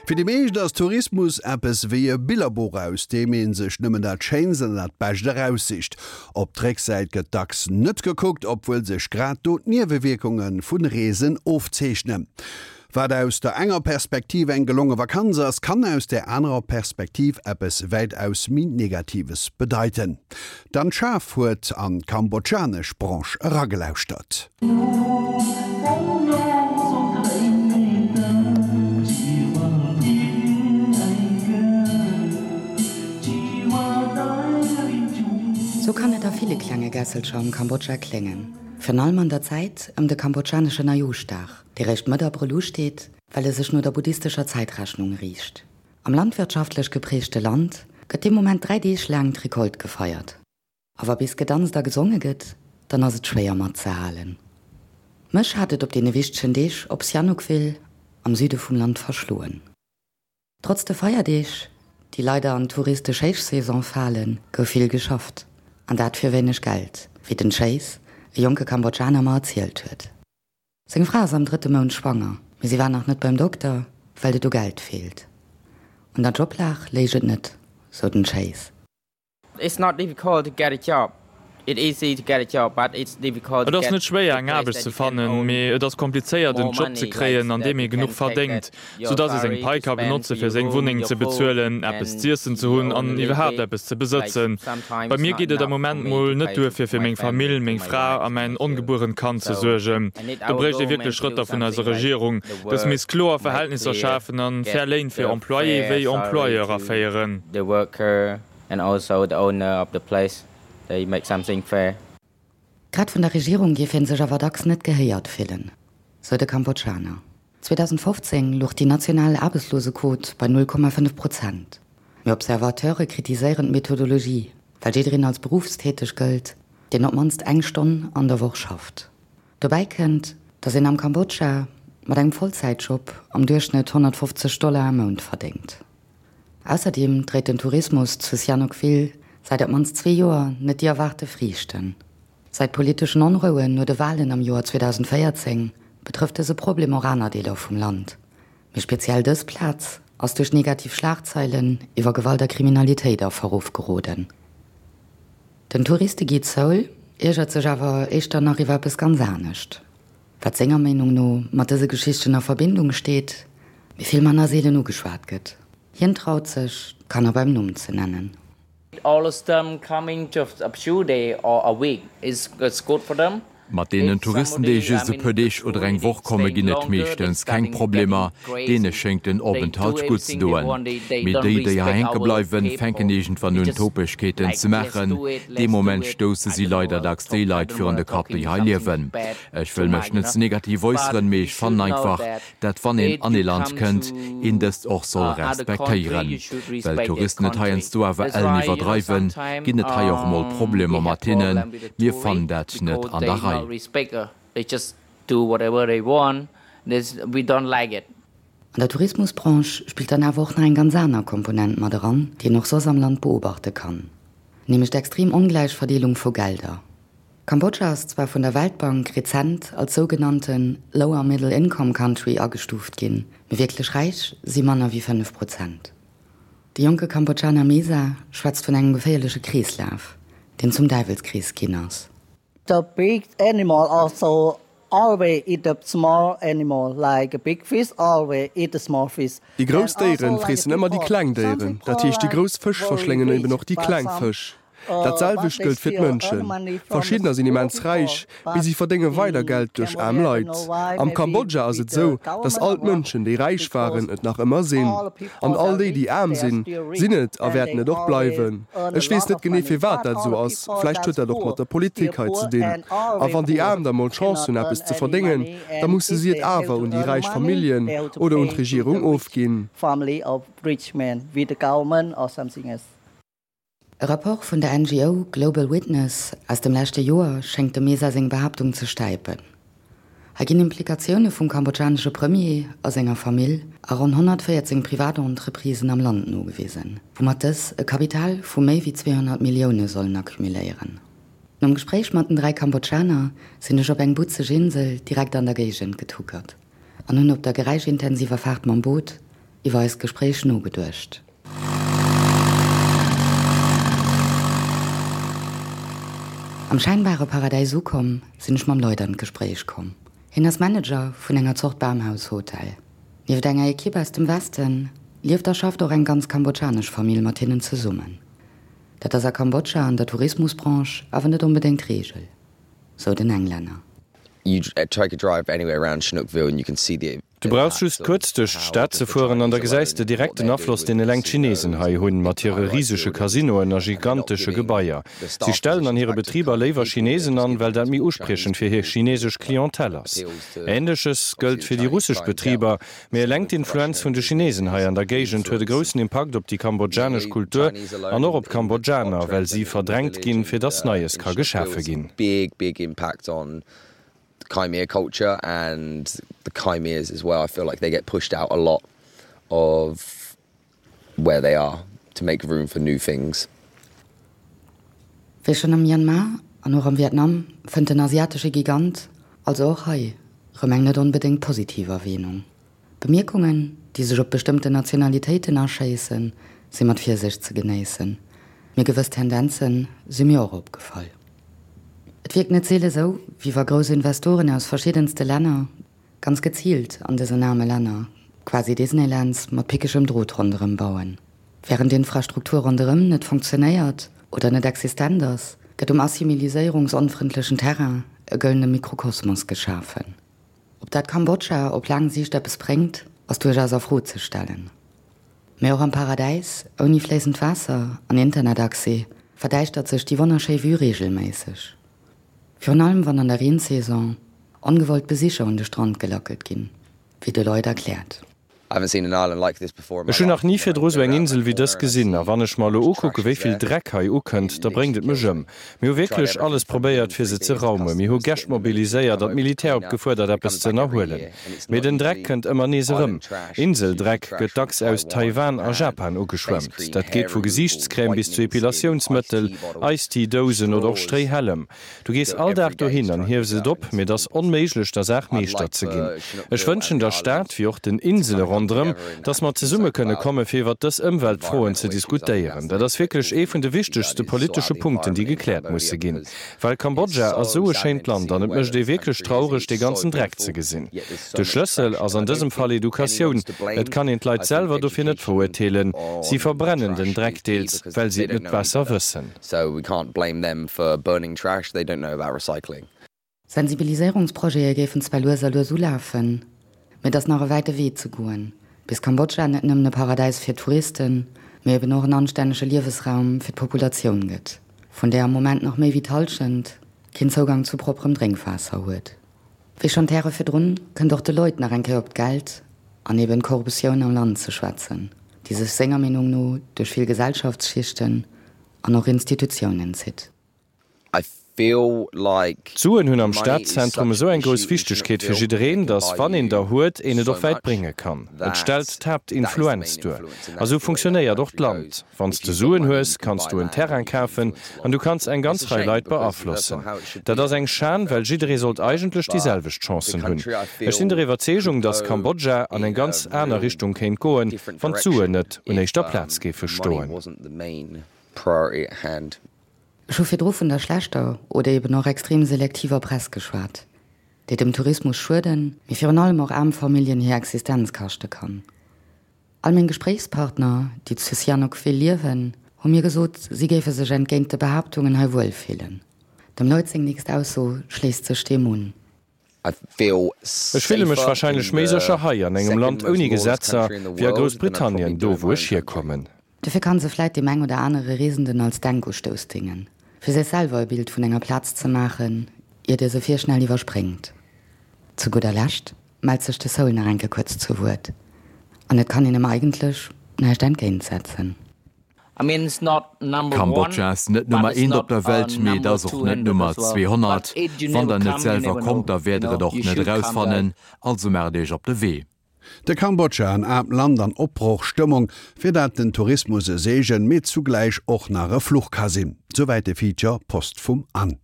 Fir déi meescht ass Tourismus eppes wéi e Billerbuch, aus deem ee sech nëmmen dat Schéinst an dat Bescht eraussicht. Op d'Récksäit gëtt dacks net gekuckt, obwuel sech grad do d'Niewewierkunge vu Reesen ofzeechnen. Wat aus der enger Perspektiv eng gelonge Vakanz ass, kann aus där anerer Perspektiv eppes wäitaus méi Negatives bedeiten. D'Anne Schaaf huet an d'kambodschanesch Branche eragelauschtert. Sou kann et a ville klenge Gässelcher am Kambodscha kléngen, virun allem an der Zäit ëm de kambodschanesche Neijooschdag. dee réischt Mëtt Abrëll usteet, well e sech no der buddhistescher Zäitrechnung riicht. Am landwirtschaftlech geprägte Land gëtt dee Moment 3 Deeg laang d'Recolte gefeiert. A wa bis gedanzt a gesonge gëtt, dann ass et schwéier matzehalen. Mech hat et op deene wichtegen Deeg op Sihanoukville am Süde vum Land verschloen. Trotz de Feierdeeg, déi leider an d'touristesch Héichsaison falen, gouf vill geschafft. An dat fir wéineg Geld, wéi den Chase, e jonke Kambodschaner, mer erzielt huet. Seng Fra ass am drëtte Mount schwanger, mee si war nach net beim Dokter, well et u Geld feelt. Un der Joblag léich et net, sou den Chase. It's not difficult to get a job. It easy to get a job, but it's difficult Et to ass get net schwéier a eng place Aarbecht that ze you can fannen, own mee et ass komplizéiert more en Job ze money, like kréien an that deem you ee genuch can take verdéngt, that your sou dass ee seng salary Pai to ka spend benotze for fir your seng room, Wunneng your ze food bezuelen, eppes and z'iessen ze your hunn own a an little iwwerhaapt bit. eppes ze Like besëtzen. sometimes Bei it's mir not geet et am enough for Moment me mol to net pay duer to fir fir my meng family, Famill, to meng my Fra wife a and mäin my children. ongebuerent Kand ze So suergen. I need Do our bréicht ee wierklech government to do Schrëtter vun eiser something like Regierung. the Dës work misst kloer make Verhältnisser clear, schafen an get fair Léin fir the Employé fair wéi salary Employeur to aféieren. the worker and also the owner of the place they make something fair. Grad vun der Regierung géif hie sech awer dacks net gehéiert fillen, sou de Kambodschaner. 2015 louch déi national Aarbechtslosequot bei 0,5 Prozent. Mee Observateure kritiséieren d'Methodologie, well jiddereen als beruffstäteg gëllt, deen op d'mannst eng Stonn an der Woch schafft. Dobäi kënnt, datt een am Kambodscha mat engem Vollzäitjob am Duerchschnëtt 150 Dollar am Mount verdéngt. Ausserdeem dréit den Tourismus zu Sihanoukville säit op d'mannst zwee Joer net déi erwaarte Friichten. Säit politeschen Onrouen no de Walen am Joer 2014 betrëfft dëse Problem och aner Deeler vum Land. Mee speziell dës Plaz ass duerch negativ Schlagzeilen iwwer Gewalt a Kriminalitéit a Verruff geroden. Den Touristeguide Seoul iergert sech awer éischter nach iwwer eppes ganz anescht. Wat senger Meenung no mat dëse Geschichten a Verbindung steet, mee vill manner seelen ugeschwat gëtt. Hien traut sech, d'Kanner beim Numm ze nennen. All of them coming just a few day or a week is good for them. Mat deenen Touristen, déi just e puer Deeg oder eng Woch komme ginn et meeschtens keng Problemer, deene schéngt den Openthalt gutt ze doen. Mee déi, déi hei hänke bleiwen, fänken iergendwann un Topegkeeten ze maachen. Dee Moment stousse si leider dacks déi Leit virun de Kapp, déi hei liewen. Ech wëll mech net ze negativ äusseren, mee ech fannen einfach, dat wann een an ee Land kënnt, een dëst och soll respektéieren. Well d'Touristen et heiansdo awer ellen iwwerdreiwen, ginn et hei och mol Problemer mat hinnen. Mir fannen dat net an der Rei. An der Tourismusbranche spillt dann awer och nach eng ganz aner Komponent mat eran, déi een och soss am Land beobachte kann, nämlech d'extrem ongläich Verdeelung vu Gelder. Kambodscha ass zwar vun der Weltbank rezent als sougenannte Lower Middle Income Country agestuuft ginn, mee wierklech räich si manner wéi 5 Prozent. De jonke Kambodschaner Mesa schwätzt vun engem geféierleche Kreeslaf, deen zum Däiwelskrees ginn ass. The big animal also always eat the small animal, like a big fish always eat the small fish. Déi grouss Déieren freessen ëmmer déi kleng Déieren, dat heescht déi grouss Fësch verschléngen eben och déi kleng Fësch. Dat selwecht gëllt fir d'Mënschen. Verschiddener sinn immens räich, mee si verdénge weider Geld duerch aarm Leit. Am Kambodscha ass et sou, datt all d'Mënschen, déi räich waren, et nach ëmmer sinn. An all déi, déi aarm sinn, sinn et a wäerten et och bleiwen. Ech weess net genee, firwat dat esou ass. Vläicht huet dat och mat der Politik hei ze dinn. A wann déi Aarm da mol d'Chance hunn, eppes ze verdéngen, da musse si et awer un déi räich Familljen oder un d'Regierung ofginn. E Rapport vun der NGO Global Witness aus dem leschte Joer schéngt dem Mesa seng Behaaptung ze stäipen. Hei ginn Implikatioune vum kambodschanesche Premier a senger Famill a ronn 114 Privatentreprisen am Land nogewisen, woumat dës e Kapital vu méi wéi 200 Millioune sollen accumuléieren. Nom Gespréich mat den 3 Kambodschaner sinn ech op eng butzeg Insel direkt an der Géigend getuckert an hunn op der geräischintensiver Faart mam Boot. iwwer eist Gespréich nogeduecht. Am schäinbare Paradäis ukomm, sinn ech mam Lloyd an d'Gespréich komm. Hien ass Manager vun enger Zort Bamhaus-Hotel. Nieft enger Ekipp aus dem Westen lieft a schafft och eng ganz kambodschanesch Famill mat hinnen zesummen. Dat ass a Kambodscha an der Tourismusbranche awer net onbedéngt d'Reegel, sou den Englänner. Du brauchs just kuerz duerch d'Stad ze fueren an da gesäis de direkt den Afloss, deen eleng d'Chinesen hei hunn, mat hire risege Casinoen a gigantesche Gebaier. Si stellen an hire Betriber léiwer Chinesen an, well dat méi uspriechend fir hir chinesesch Clientèle ass. Änleches gëllt fir déi russesch Betriber. Mee eleng d'Influenz vun de Chinesen hei an der Géigend huet e groussen Impakt op déi kambodschanesch Kultur an och op d'Kambodschaner, well si verdrängt ginn, fir dass Neies ka geschafe ginn. Khmer culture and the Khmers as well. I feel like they get pushed out a lot of where they are to make room for new things. Wéi schonn am Myanmar an och am Vietnam fënnt den asiatesche Gigant also och hei rëm eng net onbedéngt positiv Erwähnung. Bemierkungen, déi sech op bestëmmten Nationalitéiten aschéissen, si mat Virsicht ze genéissen, mee gewëss Tendenze si mir och opgefall. Et wierkt net seele sou, wéi wa grouss Investoren aus verschiddenste Länner ganz geziilt an dësen aarme Länner quasi Disneylands mat pickegem Drot ronderëm bauen. Wärend d'Infrastruktur ronderëm net funktionéiert oder net existent ass, gëtt um assimiliséierungsonfrëndlechen Terrain e gëllene Mikrokosmos geschafen. Ob dat Kambodscha op laang Siicht eppes bréngt, ass duerchaus a Fro ze stellen. Mee och am Paradäis, ouni fléissend Waasser an Internetaccès, verdäischtert sech déi wonnerschéi Vue reegelméisseg. Virun allem wann an der Reensaison ongewollt Besicher un de Strand gelackelt ginn, wéi de Lloyd erkläert. Ech hunn nach ni virdru sou eng Insel wéi dës gesinn. A wann ech mer elo ukucke wéi vill Dreck hei ukënnt, da bréngt et mech ëm. Mir hu wierklech alles probéiert, fir se ze raumen. Mir hu Gäscht mobiliséiert an d'Militär opgefuerdert, eppes ze ënnerhuelen. Mee den Dreck kënnt ëmmer nees erëm. Inseldreck gëtt dacks aus Taiwan a Japan ugeschwemmt. Dat geet vu Gesiichtscrème bis zu Epilatiounsmëttel, Ice-Tea-Dousen oder och Stréihällem. Du gees all Dag dohin an hiefs et op, mee et ass onméiglech der Saach Meeschter ze ginn. Ech wënschen der Stad, wéi och den Insele ronderëm, dass mer zesumme kënne komme fir iwwert dës Ëmweltfroen ze diskutéieren. Dat ass wierklech ee vun de wichtegste politesche Punkten, déi gekläert musse ginn. Well Kambodscha ass esou e schéint Land an et mécht ee wierklech traureg, dee ganzen Dreck ze gesinn. De Schlëssel ass an dësem Fall Educatioun. Et kann een d'Leit selwer dofir net verurteelen. Si verbrennen den Dreck deels, well si et net besser wëssen. So we can't blame them for burning trash, they don't know about recycling. Sensibiliséierungsprojete géifen zwar lues a lues ulafen, mee et ass nach e wäite Wee ze goen, bis Kambodscha net nëmmen e Paradäis fir Touristen, mee eben och en anstännege Liewesraum fir d'Populatioun gëtt, vun där am Moment nach méi wéi d'Hallschent keen Zougang zu propperem Drénkwaasser huet. Wéi schonn d'Häre virdrun, kënnt och de Lloyd nach eng Kéier op d'Geld an eben d'Korruptioun am Land ze schwätzen, déi sech senger Meenung no duerch vill Gesellschaftsschichten an och Institutiounen zitt. I feel like D'Suen hunn am Stadzentrum esou eng grouss Wichtegkeet fir jiddereen, datt wann een der huet, een et och wäit brénge kann. Et stellt d'Haaptinfluenz duer. A sou funktionéiert och d'Land. Wann s de Suen hues, kanns du en Terrain kafen an du kanns eng ganz Rei Leit beaflossen. Dat ass eng Schan, well jidderee sollt eigentlech déi selwecht Chancen hunn. Ech sinn der Iwwerzeegung, datt Kambodscha an eng ganz aner Richtung kéint goen, wann d'Suen net un éischter Plaz géife stoen. Ech hu virdru vun der schlechter oder eben och extrem selektiver Press geschwat, déi dem Tourismus schueden, mee virun allem och aarm Familljen hir Existenz kaschte kann. All meng Gespréichspartner, déi zu Sihanoukville liewen, hu mir gesot, si géife sech entgéint de Behaaptungen hei wuel fillen. Dem Lloyd seng nächst Ausso schléisst sech deem un. Ech fille mech warscheinlech méi sécher hei, an engem Land ouni Gesetzer, wéi a Groussbritannien, do wou ech hierkommen. Dofir kann se vläit deem eng oder anere Reesenden als Denkustouss déngen, fir sech selwer e Bild vun enger Plaz ze maachen, iert e se virschnell iwwerspréngt. Zu gudder Lescht mellt sech de Soul nach eng Kéier kuerz zu Wuert, an et kann een em eigentlech näischt entgéintsetzen. Kambodscha ass net Nummer eent op der Welt, mee et ass och net Nummer 200. Wann der net selwer kommt, da wäert der et och net erausfannen. Also maacht iech op de Wee. De Kambodscha, en aarmt Land an Opbrochstëmmung, fir dat den Tourismus e Seegen, mee zugläich och nach e Fluch ka sinn. Souwäit de Feature Post vum Anne.